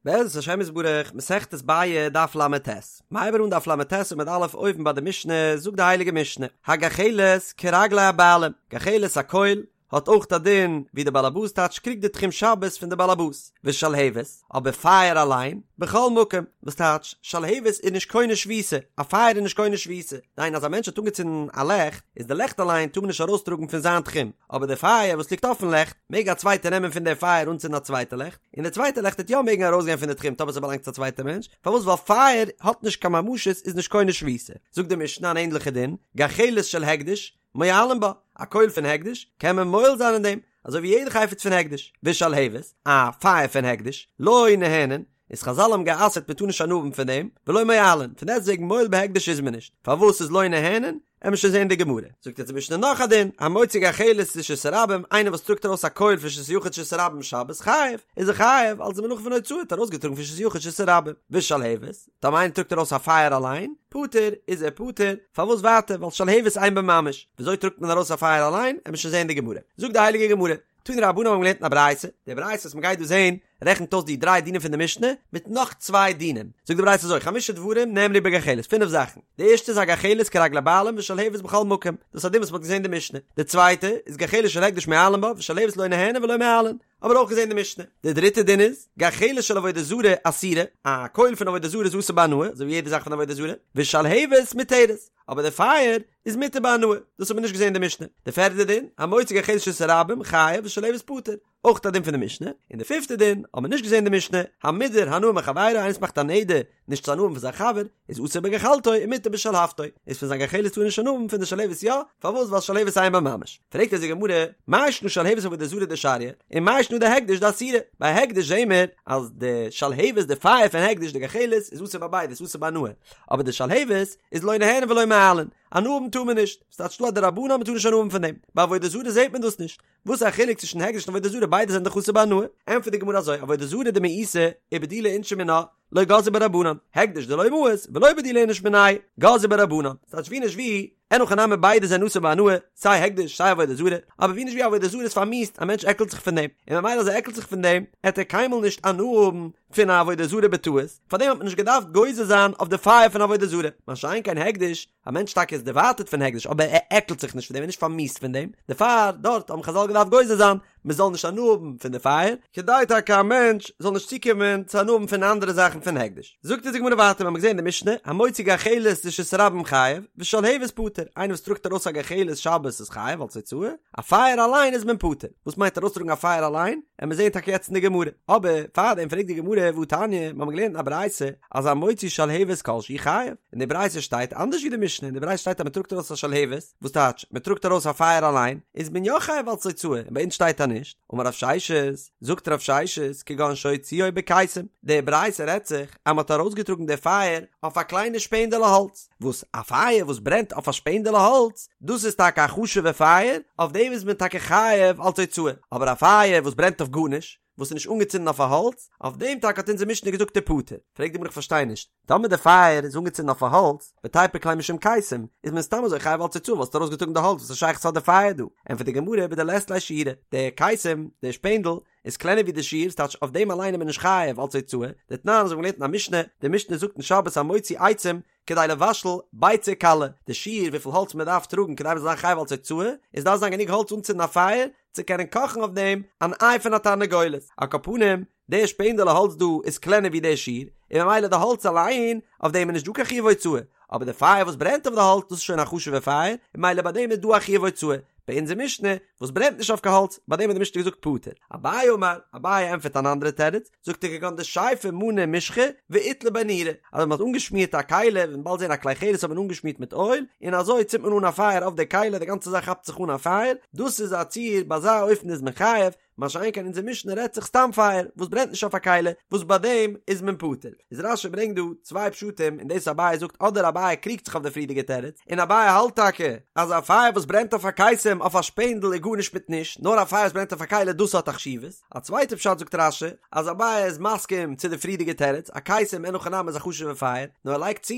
בעזרת השם יתברך, מסכת ביעא, דף ל"ט. מ'הייבט אן דף ל"ט עמוד א' אויבן ביי די משנה, זאגט די הייליגע משנה, הגחלת כרגלי הבעלים, גחלת א קויל, האט אויך א דין ווי די באלעבאס טייטש קריגט די תחום שבת פון די באלעבאס, ושלהבת, אבער פייער אליין, בכל מקום, וואס טייטש, שלהבת איז נישט קונה שביתה, א פייער איז נישט קונה שביתה, דהיינו אז א מענטש האט אנגעצינדן א לעכט, איז די לעכט אליין טאר מען נישט ארויסטראגן פון זיין תחום, אבער די פייער וואס ליגט אויפן לעכט, מעג א צווייטער נעמען פון די פייער אנצינדן א צווייטע לעכט, און די צווייטע לעכט וועט יא מעגן ארויסגיין פון די תחום טאמער ס'באלאנגט צו א צווייטע מענטש, פארוואס ווייל פייער האט נישט קיין ממשות איז נישט קונה שביתה, זאגט די משנה אן ענדליכע דין, גחלת של הקדש, מועלין בה, א קויל פון הקדש, קען מען מועל זיין אין דעם, אזוי ווי יעדע חפץ פון הקדש, ושלהבת, א פייער פון הקדש, לא נהנין, איז חזל האבן גע'אסר'ט מען טאר נישט הנאה האבן פון דעם, ולא מועלין, פון דעסטוועגן מועל בהקדש איז מען נישט, פארוואס איז לא נהנין? עמיר שוין זעהן די גמרא. זאגט יעצט די משנה נאך א דין, המוציא גחלת לרשות הרבים, איינער וואס טראגט ארויס א קויל פון רשות היחיד לרשות הרבים שבת חייב, איז ער חייב, אלס די מלאכה פון הוצאה האט ארויסגעטראגן פון רשות היחיד לרשות הרבים, ושלהבת, טאמער איינער טראגט ארויס א פייער אליין, פטור, איז ער פטור, פארוואס ווייטער, ווייל שלהבת אין בה ממש, וויאזוי טראגט מען ארויס א פייער אליין, עמיר שוין זעהן די גמרא. זאגט די הייליגע גמרא, תנו רבנן האבן געלערנט אין א ברייתא, די ברייתא וואס מ'גייט דא זעהן רעכנט אויס די דריי דינים פון די משנה מיט נאך צוויי דינים, זאגט די ברייתא אזוי, חמשה דברים נאמרו בגחלת, פינף זאכן, די ערשטע איז הגחלת כרגלי בעלים ושלהבת בכל מקום, דאס איז א דין וואס מ'האט געזעהן אין די משנה, די צווייטע איז גחלת של הקדש מועלין בה ושלהבת לא נהנין ולא מועלין, האבן מיר אויך געזעהן אין די משנה, די דריטע דין איז, גחלת של עבודה זרה אסורה, א קויל פון עבודה זרה איז אסור בהנאה, אזוי ווי יעדע זאך פון עבודה זרה, ושלהבת מותרת, אבער די פייער איז מותר בהנאה, דאס האט מען נישט געזען אין די משנה. די פערטע דין, המוציא גחלת לרשות הרבים, חייב ושלהבת פטור, אויך א דין פון די משנה. און די פיפטע דין, האט מען נישט געזען אין די משנה, המודר הנאה מחבירו, איינער וואס מאכט א נדר נישט צו הנאה האבן פון זיין חבר, איז אסור בגחלתו ומותר בשלהבתו, איז פון זיין גחלת טאר ער נישט הנאה האבן, פון די שלהבת יא, פארוואס ווייל שלהבת אין בה ממש. פרעגט אונז די גמרא, מאי שנא שלהבת עבודה זרה דשריא, און מאי שנא דהקדש דאסירא, ביי הקדש זעהן מיר אז די שלהבת די פייער פון הקדש די גחלת איז אסור ביי ביידע, ס'איז אסור בהנאה, אבער די שלהבת איז לא נהנין ולא מועלין, הנאה האבן טאר מען נישט, ס'טייטש דא א דרבנן אז מ'טאר נישט הנאה האבן פון דעם, ביי עבודה זרה זעט מען דאס נישט, וואס איז א חילוק צווישן הקדש און עבודה זרה ביידע זענען דאך אסור בהנאה, ענטפערט די גמרא אזוי, עבודה זרה דמאיסה ובדילי אינשי מינה, לא גזרו בה רבנן, הקדש דלא מאיס ולא בדילי איניש מיניה, גזרו בה רבנן, ס'טייטש ווי נישט ווי, אין הכי נמי ביידע זענען אסור בהנאה, סיי הקדש סיי עבודה זרה, אבער ווי נישט ווי עבודה זרה איז פארמיאוסט, א מענטש עקלט זיך פון דעם, און ממילא אז ער עקלט זיך פון דעם, עט ער קיינמאל נישט הנאה האבן פון א עבודה זרה בטעות, פארדעם האט מען נישט געדארפט גוזר זיין אויף די פייער פון עבודה זרה, מה שאין כן הקדש, א מענטש טאקע איז דערווייטערט פון הקדש אבער ער עקלט זיך נישט פון דעם, ער איז נישט פארמיאוסט פון דעם, דערפאר דארט האבן חזל געדארפט גוזר זיין מען זאל נישט הנאה האבן פון די פייער, כדי טאקע א מענטש זאל נישט צוקומען צו הנאה האבן פון אנדערע זאכן פון הקדש. זאגט אונז די גמרא ווייטער, מיר האבן געזען אין די משנה, המוציא גחלת לרשות הרבים חייב, ושלהבת פטור, איינער וואס טראגט ארויס א גחלת שבת איז חייב אלס הוצאה, א פייער אליין איז מען פטור. וואס מיינט ארויסטראגן א פייער אליין? עמיר זעהן טאקע יעצט אין די גמרא. אבער פארדעם פרעגט די גמרא והתניא, מיר האבן געלערנט אין א ברייתא אז המוציא שלהבת כל שהוא חייב, אין די ברייתא שטייט אנדערש ווי די משנה, אין די ברייתא שטייט אז מען טראגט ארויס א שלהבת, וואס טייטש מען טראגט ארויס א פייער אליין, איז מען יא חייב אלס הוצאה, און ביי אונז שטייט אז נישט. אמר רב ששת, זאגט רב ששת, כגון שהוציאו בקיסם, די ברייתא רעדט זיך אז מען האט ארויסגעטראגן די פייער אויף א קליינע שפענדעלע האלץ, וואס א פייער וואס ברענט אויף א שפענדעלע האלץ, דאס איז טאקע א חשוב'ע פייער, אויף דעם איז מען טאקע חייב אלס הוצאה, אבער א פייער וואס ברענט אויף גארנישט, וואס איז נישט אנגעצינדן אויף א האלץ, אויף דעם טאקע האט אונזער משנה געזאגט איז פטור. פרעגט די גמרא איך פארשטיי נישט, טאמער די פייער איז אנגעצינדן אויף א האלץ, ותיפוק ליה משום קיסם, איז מען סתם אזוי חייב אלס הוצאה ווייל ס'האט ארויסגעטראגן די האלץ וואס איז שייכות האט די פייער דא? ענטפערט די גמרא בדלית ליה שיעורא, די קיסם, די שפענדל, איז קלענער ווי די שיעור, ס'טייטש אויף דעם אליין איז מען נישט חייב אלס הוצאה, דתנן אזוי ווי מ'האט געלערנט אין א משנה, די משנה זאגט אין שבת המוציא עצים כדי לבשל ביצה קלה, די שיעור וויפיל האלץ מען דארף טראגן כדי מען זאל זיין חייב אלס הוצאה, איז דארף זיין גענוג האלץ אנצינדן א פייער צו קענען קאכן אויף דעם אן איי פון א תרנגולת, על כל פנים, די שפענדעלע האלץ דא איז קלענער ווי די שיעור, און ממילא די האלץ אליין, אויף דעם איז נישט דא קיין חיוב הוצאה, אבער די פייער וואס ברענט אויף די האלץ דאס איז שוין א חשוב'ע פייער, און ממילא ביי דעם איז דא א חיוב הוצאה. ביי אונזער משנה, וואס ברענט נישט אויף קיין האלץ, ביי דעם האט די משנה געזאגט פטור. אביי אמר, אביי ענטפערט אן אנדערע תירוץ, זאגט ער כגון דשייפי מנא משחא ואיתלי ביה נורא, אז מען האט אנגעשמירט א כלי, וועט מען באלד זען א כלי חרס האט מען אנגעשמירט מיט אויל, און אזוי צינדט מען אן א פייער אויף די כלי, די גאנצע זאך כאפט זיך אן א פייער, דאס איז א ציור, ביי אזא אופן איז מען חייב, מה שאין כן אונזער משנה רעדט זיך סתם פייער וואס ברענט נישט אויף א כלי, וואס ביי דעם איז מען פטור. איז רש"י ברענגט דא צוויי פשטים אין דאס אביי זאגט אדער אביי קריגט זיך אויף די פריערדיגע תירוץ, און אביי האלט טאקע אז א פייער וואס ברענט אויף א קיסם אויף א שפענדל איז. גארנישט מיט נישט, נאר א פייער וואס ברענט אויף א כלי דאס האט א חשיבות. א צווייטע פשט זאגט רש"י, אז אביי איז מסכים צו די פריערדיגע תירוץ, א קיסם אין הכי נמי איז א חשוב'ע פייער, נאר ער לייגט צו,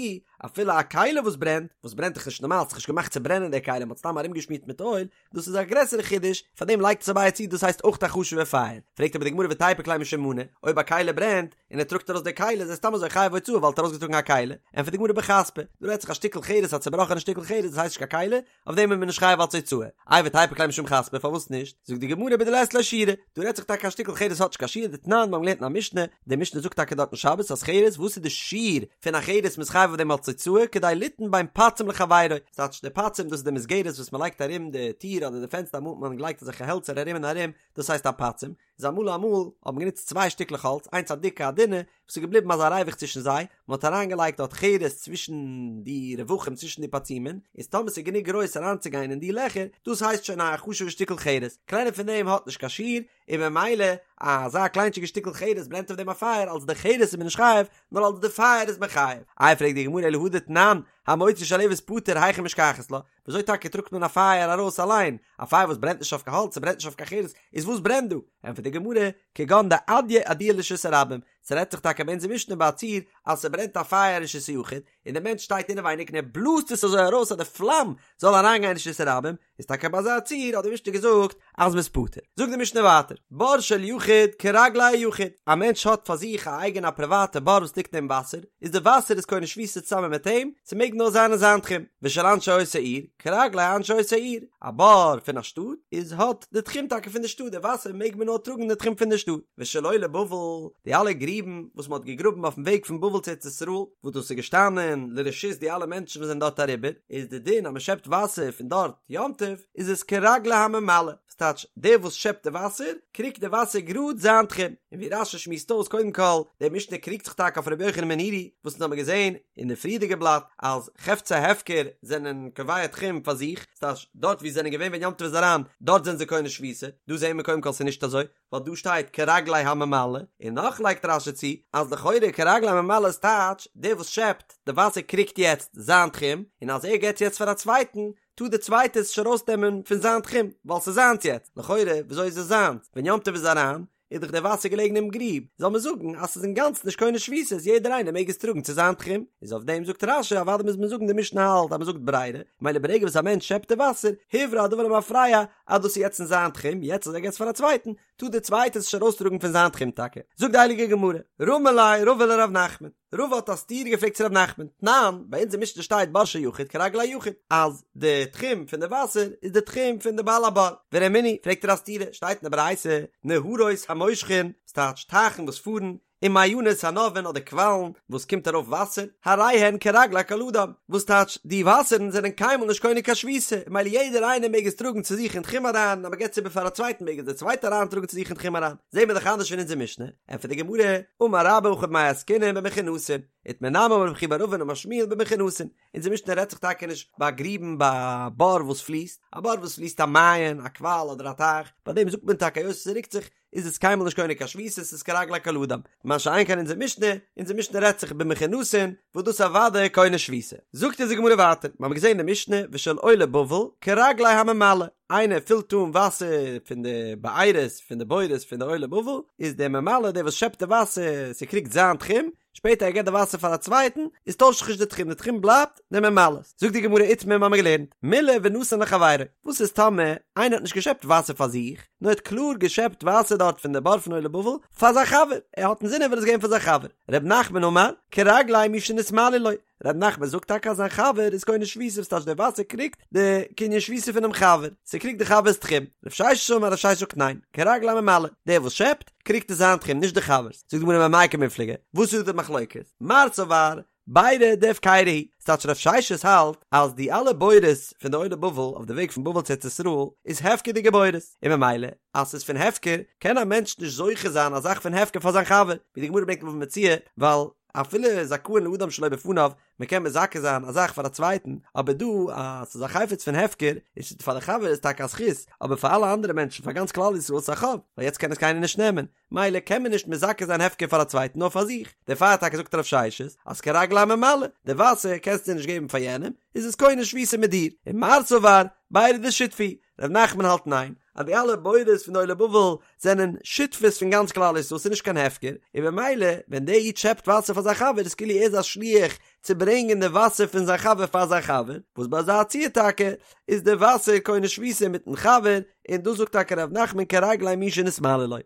אפילו א כלי וואס ברענט, וואס ברענט דאך נישט נארמאל, ס'איז נישט געמאכט צו ברענען די כלי, מ'האט סתם ארומגעשמירט מיט אויל, דאס איז א גרעסערע חידוש, פאר דעם לייגט עס אביי צו דאס הייסט אויך א חשוב'ע פייער. פרעגט אבער די גמרא ותיפוק ליה משום מנא, אויב א כלי ברענט, און ער טראגט ארויס די כלי איז ער סתם אזוי חייב הוצאה ווייל ער האט ארויסגעטראגן א כלי, ענטפערט די גמרא בחספא, דא רעדט זיך א שטיקל חרס א צובראכענע שטיקל חרס דאס הייסט נישט קיין כלי, אויף דעם איז מען נישט חייב אלץ הוצאה. איי ותיפוק ליה משום חספא פארוואס נישט? זאגט די גמרא בדלית ליה שיעורא, דא רעדט זיך טאקע א שטיקל חרס האט נישט קיין שיעור דתנן מיר האבן געלערנט אין א משנה, די משנה זאגט טאקע דארט אין שבת אז חרס וואס איז די שיעור פון א חרס מ'איז חייב אויף דעם אלץ הוצאה כדי ליתן בין פצים לחבירו, ס'טייטש די פצים דאס איז די מסגרת וואס מ'לייגט ארום די טיר אדער די פענסטער אמאל האט מען געלייגט אזעלכע העלצער ארום און ארום דאס הייסט א פצים, איז אמאל אמאל האט מען גענוצט צוויי שטיקלעך האלץ איינס א דיקע א דינע וואס איז געבליבן אזא ריווח צווישן זיי, מען האט אריינגעלייגט דארט חרס צווישן די רווחים צווישן די פצימין, איז טאמער ס'איז גענוג גרויס אריינצוגיין אין די לעכער, דאס הייסט שוין א חשוב'ע שטיקל חרס, קלענער פון דעם האט נישט קיין שיעור, און ממילא אזא קליינטשיגע שטיקל חרס ברענט אויף דעם א פייער, אלס די חרס איז מען נישט חייב, נאר אלס די פייער איז מען חייב. איי פרעגט די גמרא אלא הא דתנן, המוציא שלהבת פטור היכי משכחת לה, וויאזוי טאקע טראגט מען א פייער ארויס אליין? א פייער וואס ברענט נישט אויף קיין האלץ, ס'ברענט נישט אויף קיין חרס, איז וואס ברענט דא? ענטפערט די גמרא, כגון דאדיא אדויי לרשות הרבים, ס'רעדט זיך טאקע ביי אונזער משנה ביי א ציור אז ס'ברענט א פייער אין רשות היחיד, און דער מענטש שטייט אינעווייניג און ער בלאזט עס אזוי ארויס אז די פלאם זאל אריינגיין אין רשות הרבים, איז טאקע ביי אזא ציור האט די משנה געזאגט אז מ'איז פטור. זאגט די משנה ווייטער, בור של יחיד כרגלי היחיד, א מענטש האט פאר זיך א אייגענע א פריוואטע בור וואס ליגט אין וואסער, איז די וואסער איז קונה שביתה צוזאמען מיט אים, ס'מעג נאר זיין אין זיין תחום, ושל אנשי אותה עיר, כרגלי אנשי אותה עיר, א בור פון א שטאט, איז האט די תחום טאקע פון די שטאט, די וואסער מעג מען נאר טראגן אין די תחום פון די שטאט, ושל עולי בבל, די אלע גריבן וואס מ'האט געגראבן אויפן וועג פון בבל צו ארץ ישראל, וואס דאס איז געשטאנען לרשות די אלע מענטשן וואס זענען דארט אריבער, איז די דין אז מ'שעפט וואסער פון דארט יום טוב, איז עס כרגלי הממלא. ס'טייטש, דער וואס שעפט די וואסער, קריגט די וואסער גראד זיין תחום. און ווי רש"י שמועסט אויס, קודם כל, די משנה קריגט זיך טאקע אויף רבי יוחנן בן נורי, וואס אונז האבן געזען אין די פריערדיגע בלאט, אז חפצי הפקר זענען קובע תחום פאר זיך, ס'טייטש, דארט וואו זיי זענען געווען ווען יום טוב איז אריין, דארט זענען זיי קונה שביתה. דא זעען מיר קודם כל ס'איז נישט אזוי, ווייל דא שטייט כרגלי הממלא, און נאך לייגט רש"י צו, אז לכאורה כרגלי הממלא איז טייטש, דער וואס שעפט די וואסער קריגט יעצט זיין תחום, און אז ער געבט יעצט פאר א צווייטן, טאר דער צווייטער עס נישט ארויסנעמען פון זיין תחום, ווייל ס'איז זיינס יעצט, לכאורה וויאזוי איז עס זיינס? ווען יום טוב איז אריין, איז דאך דער וואסער געלעגן אינעם גריב, זאל מען זאגן אז ס'איז אינגאנצן נישט קונה שביתה, יעדער איינער מעג עס טראגן צו זיין תחום, איז אויף דעם זאגט רש"י, אוודאי מוז מען זאגן די משנה האלט אז מ'זאגט ברירה, מילא ברגע וואס א מענטש שעפט די וואסער, הוברר הדבר למפרע, אז דאס איז יעצט אין זיין תחום, יעצט אז ער געבט עס פאר א צווייטן, טאר דער צווייטער עס נישט ארויסטראגן פון זיין תחום טאקע. זאגט די הייליגע גמרא, רמי ליה רבא לרב נחמן, רבא האט א סתירה געפרעגט צו רב נחמן, תנן, ביי אונזער משנה שטייט בור של יחיד כרגלי היחיד, אז די תחום פון די וואסער איז די תחום פון די בעל הבור, ורמינהו, פרעגט ער א סתירה, שטייט אין די ברייתא, נהרות המושכין, ס'טייטש טייכן וואס פארן, ומעיינות הנובעין אדער קוואלן וואס קומט ארויף וואסער, הרי הן כרגלי כל אדם, וואס טייטש די וואסערן זענען קיינמאל נישט קונה קיין שביתה, מילא יעדער איינער מעג עס טראגן צו זיך אין תחום אריין, אז מען געבט עס איבער פאר א צווייטן מעג עס דער צווייטער אריין טראגן צו זיך אין תחום אריין, זעהן מיר דאך אנדערש פון אונזער משנה, ענטפערט די גמרא, אמר רבה הכא במאי עסקינן במכונסין, איתמר נמי אמר רב חייא בר אבין אמר שמואל במכונסין, אונזער משנה רעדט זיך טאקע נישט ביי גריבן ביי א בור וואס פליסט, א בור וואס פליסט א מעיין, א קוואל אדער א טייך, ביי דעם זאגט מען טאקע היות עס רוקט זיך, איז עס קיינמאל נישט קונה קיין שביתה, עס איז כרגלי כל אדם. מה שאין כן אונזער משנה, אונזער משנה רעדט זיך במכונסין, וואס דאס אוודאי קונה שביתה. זאגט אונז די גמרא ווייטער, מיר האבן געזען אין די משנה, ושל עולי בבל, כרגלי הממלא, איינער פילט אן וואסער פון די בארות, פון די בורות פון די עולי בבל, איז דער ממלא, דער וואס שעפט די וואסער, ס'קריגט זיין תחום, שפעטער ער געבט די וואסער פאר א צווייטן, איז טוישט זיך נישט די תחום, די תחום בלייבט די ממלא'ס. זאגט די גמרא איתמר מיר האבן געלערנט, מילא ונתן לחבירו, וואס איז טאמער איינער האט נישט געשעפט וואסער פאר זיך, נאר ער האט קלאר געשעפט וואסער דארט פון די בור פון עולי בבל פאר זיין חבר, ער האט אינזין ער וויל עס געבן פאר זיין חבר, ר' נחמן אמר, כרגלי מי שנתמלאו לו, ר' נחמן זאגט טאקע אז זיין חבר איז קונה שביתה וואס טייטש די וואסער קריגט די קנין שביתה פונעם חבר, ס'קריגט די חבר'ס תחום, רב ששת אמר רב ששת זאגט ניין, כרגלי הממלא, דער וואס שעפט, קריגט עס זיין תחום נישט די חבר'ס, זאגט די גמרא במאי קמיפלגי, וואס איז דא די מחלוקת? מר סבר, בירא דהפקירא הוא, ס'טייטש רב ששת האלט אז די אלע בורות פון די עולי בבל אויף די וועג פון בבל צו ארץ ישראל איז הפקר'דיגע בורות, און ממילא אז ס'איז פון הפקר קען א מענטש נישט זוכה זיין א זאך פון הפקר פאר זיין חבר, ווי די גמרא ברענגט אין בבא מציעא, ווייל אפילו זכאין לאדם שלא בפניו, מען קען מזכה זיין א זאך פאר א צווייטן, אבער דא אז ס'איז א חפץ פון הפקר, איז פאר די חבר איז טאקע א זכות, אבער פאר אלע אנדערע מענטשן פאר גאנץ כלל ישראל איז עס א חוב, ווייל יעצט קען עס קיינער נישט נעמען, מילא קען מען נישט מזכה זיין הפקר פאר א צווייטן נאר פאר זיך, דערפאר טאקע זאגט רב ששת אז כרגלי הממלא, די וואסער קענסטו נישט געבן פאר יענעם, איז עס קונה שביתה מיט דיר, און מר סבר, בירא דשותפי הוא. ר' נחמן האלט ניין, אז די אלע בורות פון די עולי בבל זענען שותפות פון גאנץ כלל ישראל, ס'איז נישט קיין הפקר, און במילא ווען דער איד שעפט וואסער פאר זיין חבר איז כאילו ער איז א שליח צו ברענגען די וואסער פון זיין חבר פאר זיין חבר, וואס ביי אזא ציור טאקע איז די וואסער קונה שביתה מיטן חבר, און דאס זאגט טאקע ר' נחמן כרגלי מי שנתמלא לו.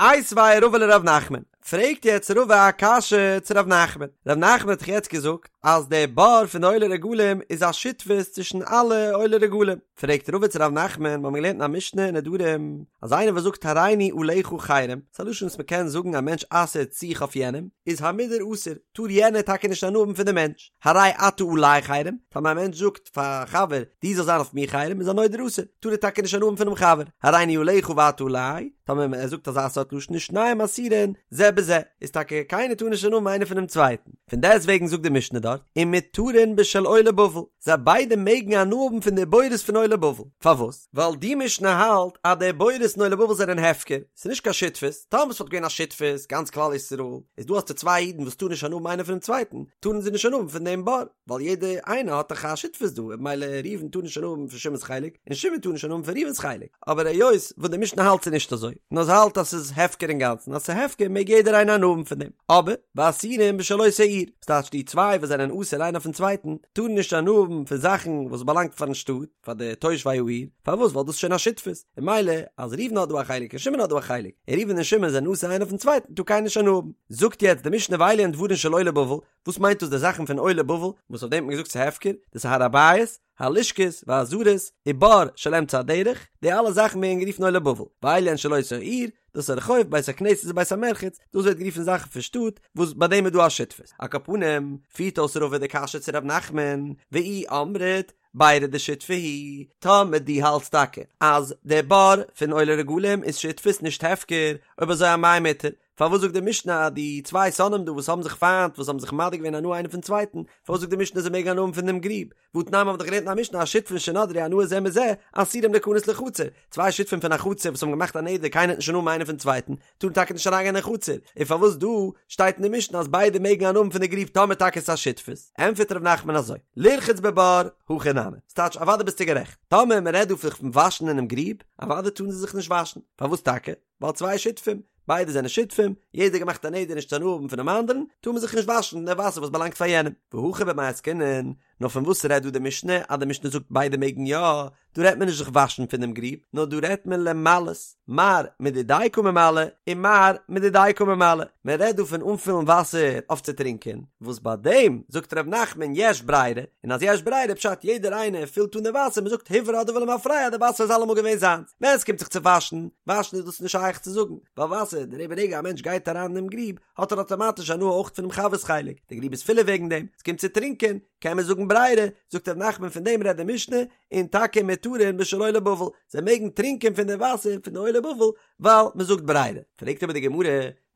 איתיביה רבא לר' נחמן, פרעגט יעצט רבא א קשיא צו ר' נחמן, ר' נחמן האט דאך יעצט געזאגט אז דער בור פון די עולי רגלים איז א שותפות צווישן אלע עולי רגלים, פרעגט רבא צו ר' נחמן, מיר האבן געלערנט אין א משנה אין נדרים, אז איינער וואס זאגט הריני עליך חרם, ס'איז א לשון וואס מ'קען זאגן א מענטש אסר'ט זיך אויף יענעם, איז המודר אסור, טאר יענער טאקע נישט הנאה האבן פון די מענטש, הרי אתה עלי חרם, טאמער א מענטש זאגט פאר א חבר, דו זאלסט זיין אויף מיר חרם, איז הנודר אסור, טאר ער טאקע נישט הנאה האבן פונעם חבר, הריני עליך ואתה עלי, טאמער ער זאגט אזא סארט לשון איז שניהם אסורין זה בזה, איז טאקע קיינער טאר נישט הנאה האבן איינער פונעם צווייטן, פון דעסט וועגן זאגט די משנה דארט, ומותרין בשל עולי בבל, זיי ביידע מעגן הנאה האבן פון די בורות פון עולי בבל, פארוואס? ווייל די משנה האלט אז די בורות פון עולי בבל זענען הפקר, ס'איז נישט קיין שותפות, טאמער ס'וואלט געווען א שותפות, גאנץ כלל ישראל, איז דא האסטו צוויי אידן וואס טארן נישט הנאה האבן איינער פונעם צווייטן, טארן זיי נישט הנאה האבן פון דעם בור, ווייל יעדער איינער האט דאך א שותפות דא, ממילא ראובן טאר נישט הנאה האבן פון שמעון'ס חלק, און שמעון טאר נישט הנאה האבן פון ראובן'ס חלק, אבער היות וואס די משנה האלט ס'איז נישט אזוי, נאר זי האלט אז ס'איז הפקר אינגאנצן, אז ס'איז הפקר מעג יעדער איינער הנאה האבן פון דעם, אבער ואסורים בשל אותה עיר, ס'טייטש די צוויי וואס זענען אסור איינער אויפן צווייטן, טארן נישט הנאה האבן פון זאכן וואס באלאנגט פארן שטאט, פאר די תושבי העיר, פארוואס? ווייל דאס איז שוין א שותפות, און ממילא אז ראובן האט דא א חלק און שמעון האט דא א חלק, און ראובן און שמעון זענען אסור איינער אויפן צווייטן, טאר קיינער נישט הנאה האבן. זאגט יעצט די משנה ואלו הן דברים של עולי בבל, וואס מיינט דאס די זאכן פון עולי בבל, וואס אויף דעם האט מען געזאגט ס'איז הפקר, דאס איז הר הבית, הלשכות, והעזרות, ובור של אמצע הדרך, די אלע זאכן ווערן גערופן עולי בבל, ואלו הן של אותה העיר, דאס איז הרחוב, בית הכנסת ובית המרחץ, דאס ווערט גערופן זאכן פון שטאט, וואס ביי דעם איז דא א שותפות. על כל פנים, פירט אויס רבא די קשיא צו ר' נחמן, ואי אמרת, בירא דשותפי הוא, טאמער דו האלטסט טאקע אז דער בור פון עולי רגלים איז שותפות נישט הפקר, אויב אזוי אמאי מותר, פארוואס זאגט די משנה אז די צוויי שונאים דא וואס האבן זיך פיינט וואס האבן זיך מדיר געווען הנאה איינער פון צווייטן, פארוואס זאגט די משנה זיי מעגן הנאה האבן פון דעם גריב? והתנן מ'האט דאך געלערנט אין א משנה השותפין שנדרו הנאה זה מזה אסורים ליכנס לחצר, צוויי שותפים פון א חצר וואס האבן געמאכט א נדר קיינער וועט נישט הנאה האבן איינער פון צווייטן, טארן טאקע נישט אריינגיין אין חצר, און פארוואס דא שטייט אין די משנה אז ביידע מעגן הנאה האבן פון די גריב טאמער טאקע איז עס א שותפות? ענטפערט ר' נחמן אזוי, לרחוץ בבור, הכי נמי, ס'טייטש אוודאי ביסטו גערעכט, טאמער מ'רעדט דא פון וואשן אינעם גריב, אוודאי טארן זיי זיך נישט וואשן, פארוואס טאקע? ווייל צוויי שותפים, ביידע זענען שותפים, יעדער געמאכט א נדר נישט צו הנאה האבן פונעם אנדערן, טאר מען זיך נישט וואשן אין די וואסער וואס באלאנגט פאר יענעם. והכא במאי עסקינן, נאר פון וואס רעדט דא די משנה אז די משנה זאגט ביידע מעגן יא, דא רעדט מען נישט זיך וואשן פונעם גריב, נאר דא רעדט מען למלאות, מר מדידיה קא ממלא און מר מדידיה קא ממלא, מען רעדט דא פון אנפילן וואסער אויף צו טרינקען, וואס ביי דעם זאגט ר' נחמן יש ברירה, און אז יש ברירה פשט יעדער איינער פילט אן די וואסער, מען זאגט הוברר הדבר למפרע די וואסער איז אלעמאל געווען זיינס, ווען עס קומט זיך צו וואשן, וואשן איז דאס נישט שייך צו זאגן, ווייל וואסער, די רגע א מענטש גייט אריין אינעם גריב, האט ער אטאמאטיש הנאה אויך פונעם חבר'ס חלק, די גריב איז פילער וועגן דעם, עס קומט צו טרינקען, קען מען זאגן ברירה, זאגט ר' נחמן פון דעם רעדט די משנה, און טאקע מותרין בשל עולי בבל, זיי מעגן טרינקען פון די וואסער פון די עולי בבל, ווייל מען זאגט ברירה. פרעגט אבער די גמרא,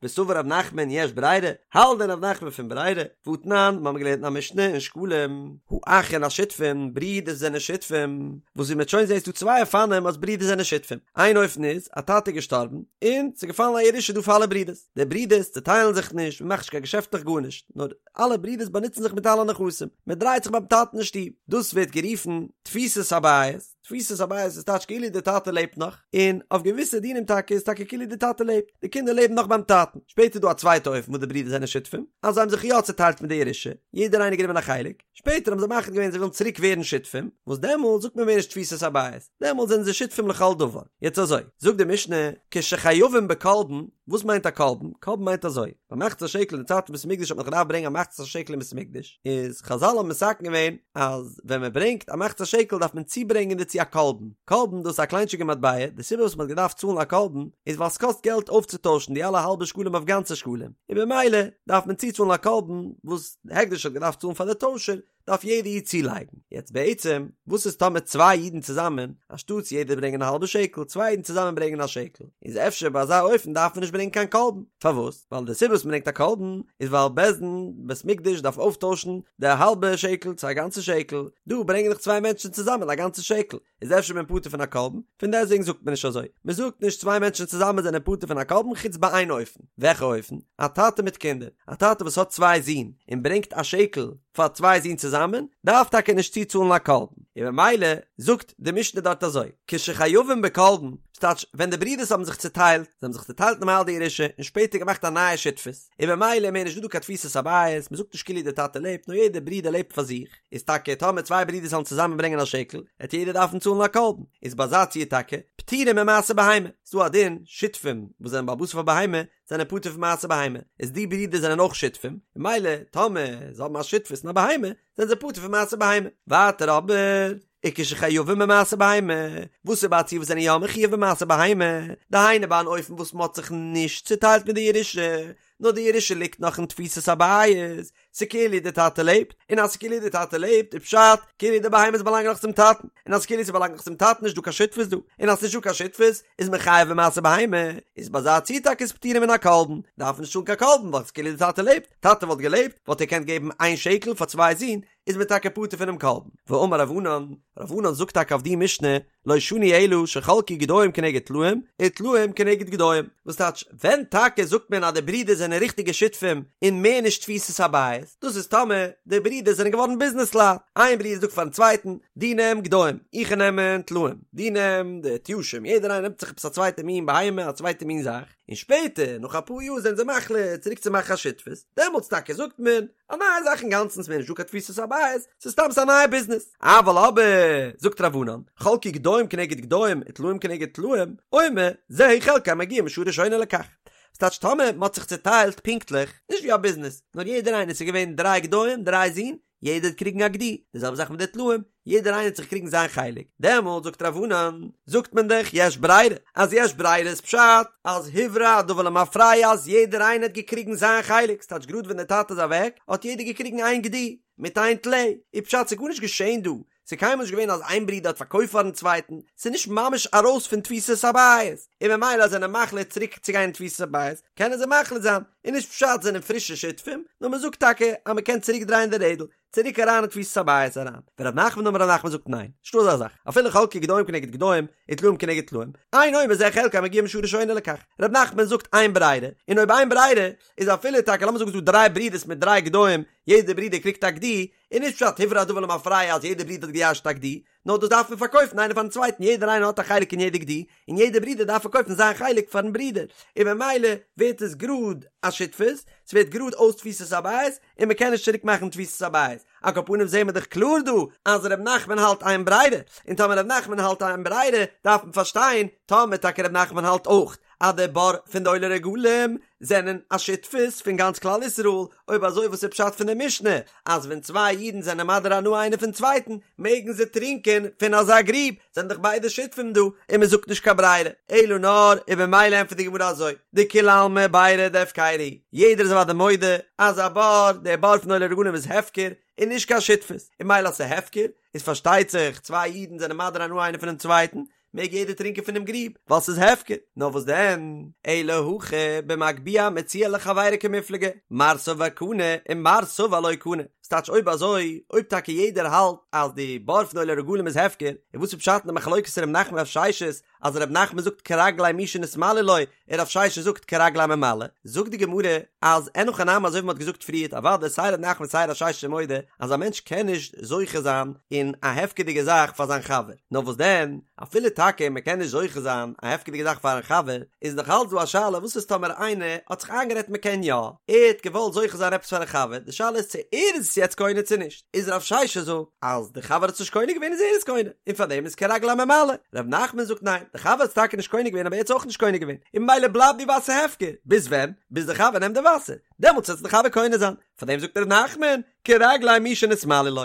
וסבר רב נחמן יש ברירה, האלט דען רב נחמן פון ברירה? והתנן, מיר האבן געלערנט אין א משנה אין שקלים, האחין השותפין, ברידער זענען שותפים, וואס ווי מ'וועט שוין זעהן איז דא צוויי אופנים אז ברידער זענען שותפים, איין אופן איז, א טאטע איז געשטארבן, און ס'איז געפאלן א ירושה דא פאר אלע ברידערס, די ברידערס צעטיילן זיך נישט, מ'מאכט נישט קיין געשעפטלעך גארנישט, נאר אלע ברידערס באנוצן זיך מיט אלע נכסים, מ'דרייט זיך ביים טאטן אין שטוב, דאס ווערט גערופן תפיסת הבית. תפיסת הבית איז טייטש כאילו די טאטע לעבט נאך, און אויף געוויסע דינים טאקע איז טאקע כאילו די טאטע לעבט, די קינדער לעבן נאך ביים טאטן. שפעטער איז דא א צווייטע אופן וואס די ברידער זענען שותפים, אז זיי האבן זיך יא צעטיילט מיט די ירושה, יעדער איינער גענומען א חלק, שפעטער האבן זיי מחליט געווען זיי ווילן צוריק ווערן שותפים, וואס דעמאלט זאגט מען מער נישט תפיסת הבית, דעמאלט זענען זיי שותפים לכל דבר. יעצט אזוי, זאגט די משנה, כשחייבים בקלבון, וואס מיינט א קלבון? קלבון מיינט אזוי, ביי מחצית השקל אין די צייט פון בית המקדש האט מען געדארפט ברענגען א מחצית השקל אין בית המקדש, איז חזל האבן מתקן געווען אז ווען מען ברענגט א מחצית השקל דארף מען צוברענגען דערצו א קלבון, קלבון דאס איז א קליינטשיגע מטבע, די סיבה וואס מען האט געדארפט צאלן א קלבון איז ווייל ס'קאסט געלט אויפצוטוישן די אלע האלבע שקלים אויף גאנצע שקלים, און במילא דארף מען צוצאלן א קלבון וואס הקדש האט געדארפט צאלן פאר די טוישער, דארף יעדע איד צולייגן. יעצט בעצם, וואס איז טאמער צוויי אידן צוזאמען, אנשטאטס יעדער ברענגען א האלבע שקל, צוויי אידן צוזאמען ברענגען א שקל, איז אפשר ביי אזא אופן דארף מען נישט ברענגען קיין קלבון. פארוואס? ווייל די סיבה וואס מען ברענגט א קלבון, איז ווייל בית דין, בית מקדש דארף אויפטוישן די האלבע שקל צו א גאנצע שקל, דא ברענגען דאך צוויי מענטשן צוזאמען א גאנצע שקל. איז אפשר מען פטור פון א קרבן, פון דעסטוועגן זאגט מען נישט אזוי, מען זאגט נישט צוויי מענטשן צוזאמען זענען פטור פון א קרבן חוץ ביי איין אופן, וועלכע אופן? א טאטע מיט קינדער, א טאטע וואס האט צוויי זין און ברענגט א שקל פאר צוויי זין צוזאמען, דארף טאקע נישט צוצאלן א קרבן, און ממילא זאגט די משנה דארט אזוי, כשחייבים בקרבן, ס'טייטש ווען די ברידערס האבן זיך צוטיילט, זיי האבן זיך צוטיילט נארמאל די ירושה און שפעטער געמאכט א נייע שותפות, און ממילא מער נישט דא דא קיין תפיסת הבית, מ'זאגט נישט כאילו די טאטע לעבט, נאר יעדער ברודער לעבט פאר זיך, איז טאקע טאמער צוויי ברידערס זאלן צוזאמען ברענגען א שקל, העט יעדער דארפן צאלן א קרבן, איז ביי אזא ציור טאקע, פטורים ממעשר בהמה, ס'דא א דין, שותפים וואס זענען בעל הבית אויף א בהמה, זענען פטור פון מעשר בהמה, איז די ברידער זענען אויך שותפים, ממילא טאמער זיי האבן א שותפות אין א בהמה, זענען זיי פטור פון מעשר בהמה. ווייטער אבער, וכשחייבים במעשר בהמה, וואס איז ביי א ציור וואס זענען יא מחויב במעשר בהמה, דהיינו ביי אן אופן וואס מ'האט זיך נישט צוטיילט מיט די ירושה, נאר די ירושה ליגט נאך אין תפיסת הבית, ס'כאילו די טאטע לעבט, און אז ס'כאילו די טאטע לעבט איז פשט כאילו די בהמות באלאנגען נאך צום טאטן, און אז כאילו ס'באלאנגט נאך צום טאטן נישט דא קיין שותפות דא, און אז ס'נישט דא קיין שותפות איז מען חייב במעשר בהמה, איז ביי אזא ציור טאקע איז פטורים מן הקרבן, דארף מען נישט צאלן קיין קרבן ווייל ס'כאילו די טאטע לעבט, טאטע וואלט געלעבט וואלט ער געקענט געבן איין שקל פאר צוויי זין, איז מען טאקע פטור פונעם קרבן. ואמר רב ענן, רב ענן זאגט טאקע אויף די משנה, לא שנו אלא שחלקו גדיים כנגד טלאים, וטלאים כנגד גדיים. וואס טייטש, ווען טאקע זאגט מען אז די ברידער זענען ריכטיגע שותפים און מער נישט תפיסת הבית, דאס איז טאמער די ברידער זענען געווארן ביזנעסלייט, איין ברודער זאגט פארן צווייטן, דו נעם גדיים, איך נעם טלאים, דו נעם די תיישים, יעדער איינער נעמט זיך עפעס א צווייטע מין בהמה, א צווייטע מין זאך, און שפעטער, נאך אפאר יאר זענען זיי מחליט צוריק צו מאכן א שותפות, דעמאלטס טאקע זאגט מען, א נייע זאך אינגאנצן, ס'מער נישט דא קיין תפיסת הבית, ס'איז סתם ס'איז א נייע ביזנעס. אבל אבער, זאגט רב ענן, חלקו גדיים כנגד גדיים וטלאים כנגד טלאים, אומר, זהו חלקו המגיע משעה ראשונה לכך. ס'טייטש טאמער מ'האט זיך צוטיילט פונקטליך, נישט ווי א ביזנעס, נאר יעדער איינער ס'איז געווען דריי גדיים, דריי זין, יעדער האט קריגן א גדי, די זעלבע זאך מיט די טלאים, יעדער איינער האט זיך קריגן זיין חלק, דעמאלט זאגט רב ענן, זאגט מען דאך יש ברירה, אז יש ברירה איז פשט אז הוברר הדבר למפרע אז יעדער איינער האט געקריגן זיין חלק, ס'טייטש גראד ווען דער טאטע איז אוועק האט יעדער געקריגן איין גדי מיט איין טלה, איז פשט ס'איז גארנישט געשען דא, ס'איז קיינמאל נישט געווען אז איין ברודער האט פארקויפט פארן צווייטן, ס'איז נישט ממש ארויס פון תפיסת הבית, און ממילא אז זענען מחליט צוריק צו גיין אין תפיסת הבית, קענען זיי מחליט זיין, און נישט פשט זענען פרישע שותפים, נאר מ'זאגט טאקע אז מ'קען צוריק דרייען די רעדל, צוריק אריין אין תפיסת הבית אריין. ורב נחמן אמר רב נחמן זאגט ניין, נישטא אזא זאך, אפילו חלקו גדיים כנגד גדיים, וטלאים כנגד טלאים, אין אומר זה חלקו המגיע משעה ראשונה לכך. רב נחמן זאגט אין ברירה, און אויב אין ברירה, איז אפילו טאקע לאמיר זאגן ס'דא דריי ברודערס מיט דריי גדיים, יעדער ברודער קריגט א גדי, איז נישט פשט הוברר הדבר למפרע אז יעדער ברודער האט געירש'ט א גדי, נאר דאס דארף מען פארקויפן איינער פארן צווייטן, יעדער איינער האט א חלק אין יעדע גדי, און יעדער ברודער דארף פארקויפן זיין חלק פארן ברודער, און ממילא ווערט עס גראד א שותפות, ס'ווערט גראד אויס תפיסת הבית, און מ'קען נישט צוריק מאכן תפיסת הבית. על כל פנים זעהן מיר דאך קלאר דא אז ר' נחמן האלט אין ברירה, און טאמער ר' נחמן האלט אין ברירה דארף מען פארשטיין טאמער טאקע ר' נחמן האלט אויך אז די בור פון די עולי רגלים זענען א שותפות פון גאנץ כלל ישראל, אויב אזוי וואס איז פשט פון די משנה אז ווען צוויי אידן זענען מדיר הנאה איינער פון צווייטן מעגן זיי טרינקען פון אזא גריב, זענען דאך ביידע שותפים דא און מען זאגט נישט קיין ברירה, אלא נאר און במילא ענטפערט די גמרא אזוי, דכולי עלמא בירא דהפקירא היא, יעדער איז אוודאי מודה אז א בור, דער בור פון עולי רגלים איז הפקר און נישט קיין שותפות, און ממילא אז ס'איז הפקר איז פארשטייט זיך צוויי אידן זענען מדיר הנאה איינער פונעם צווייטן, מעג יעדער טרינקען פונעם גריב, ווייל ס'איז הפקר. נאר וואס דען? אלא הכא במגביה מציאה לחבירו קמיפלגי, מר סבר קני און מר סבר לא קני. ס'טייטש אויב אזוי, אויב טאקע יעדער האלט אז די בור פון עולי רגלים איז הפקר, און וואס איז פשט אין די מחלוקת ר' נחמן רב ששת, אז ר' נחמן זאגט כרגלי מי שנתמלאו לו, און רב ששת זאגט כרגלי הממלא, זאגט די גמרא אז אין הכי נמי אזוי ווי מ'האט געזאגט פריערט אוודאי סיי ר' נחמן סיי רב ששת איז מודה אז א מענטש קען נישט זוכה זיין אין א הפקר'דיגע זאך פאר זיין חבר, נאר וואס דען אפילו טאקע מ'קען נישט זוכה זיין א הפקר'דיגע זאך פארן חבר, איז נאך אלץ דא א שאלה וואס איז טאמער איינער האט זיך איינגערעדט מ'קען יא, ער האט געוואלט זוכה זיין עפעס פארן חבר, די שאלה איז צו ער איז עס יעצט קונה צו נישט. איז רב ששת זאגט אז די חבר האט עס נישט קונה געווען איז ער עס קונה און פאר דעם איז כרגלי הממלא, רב נחמן זאגט ניין די חבר האט עס טאקע נישט קונה געווען אבער ער האט עס אויך נישט קונה געווען און ממילא בלייבט די וואסער הפקר ביז ווען? ביז די חבר נעמט די וואסער דעמאלטס וועט עס די חבר קונה זיין פאר דעם זאגט רב נחמן כרגלי מי שנתמלאו לו.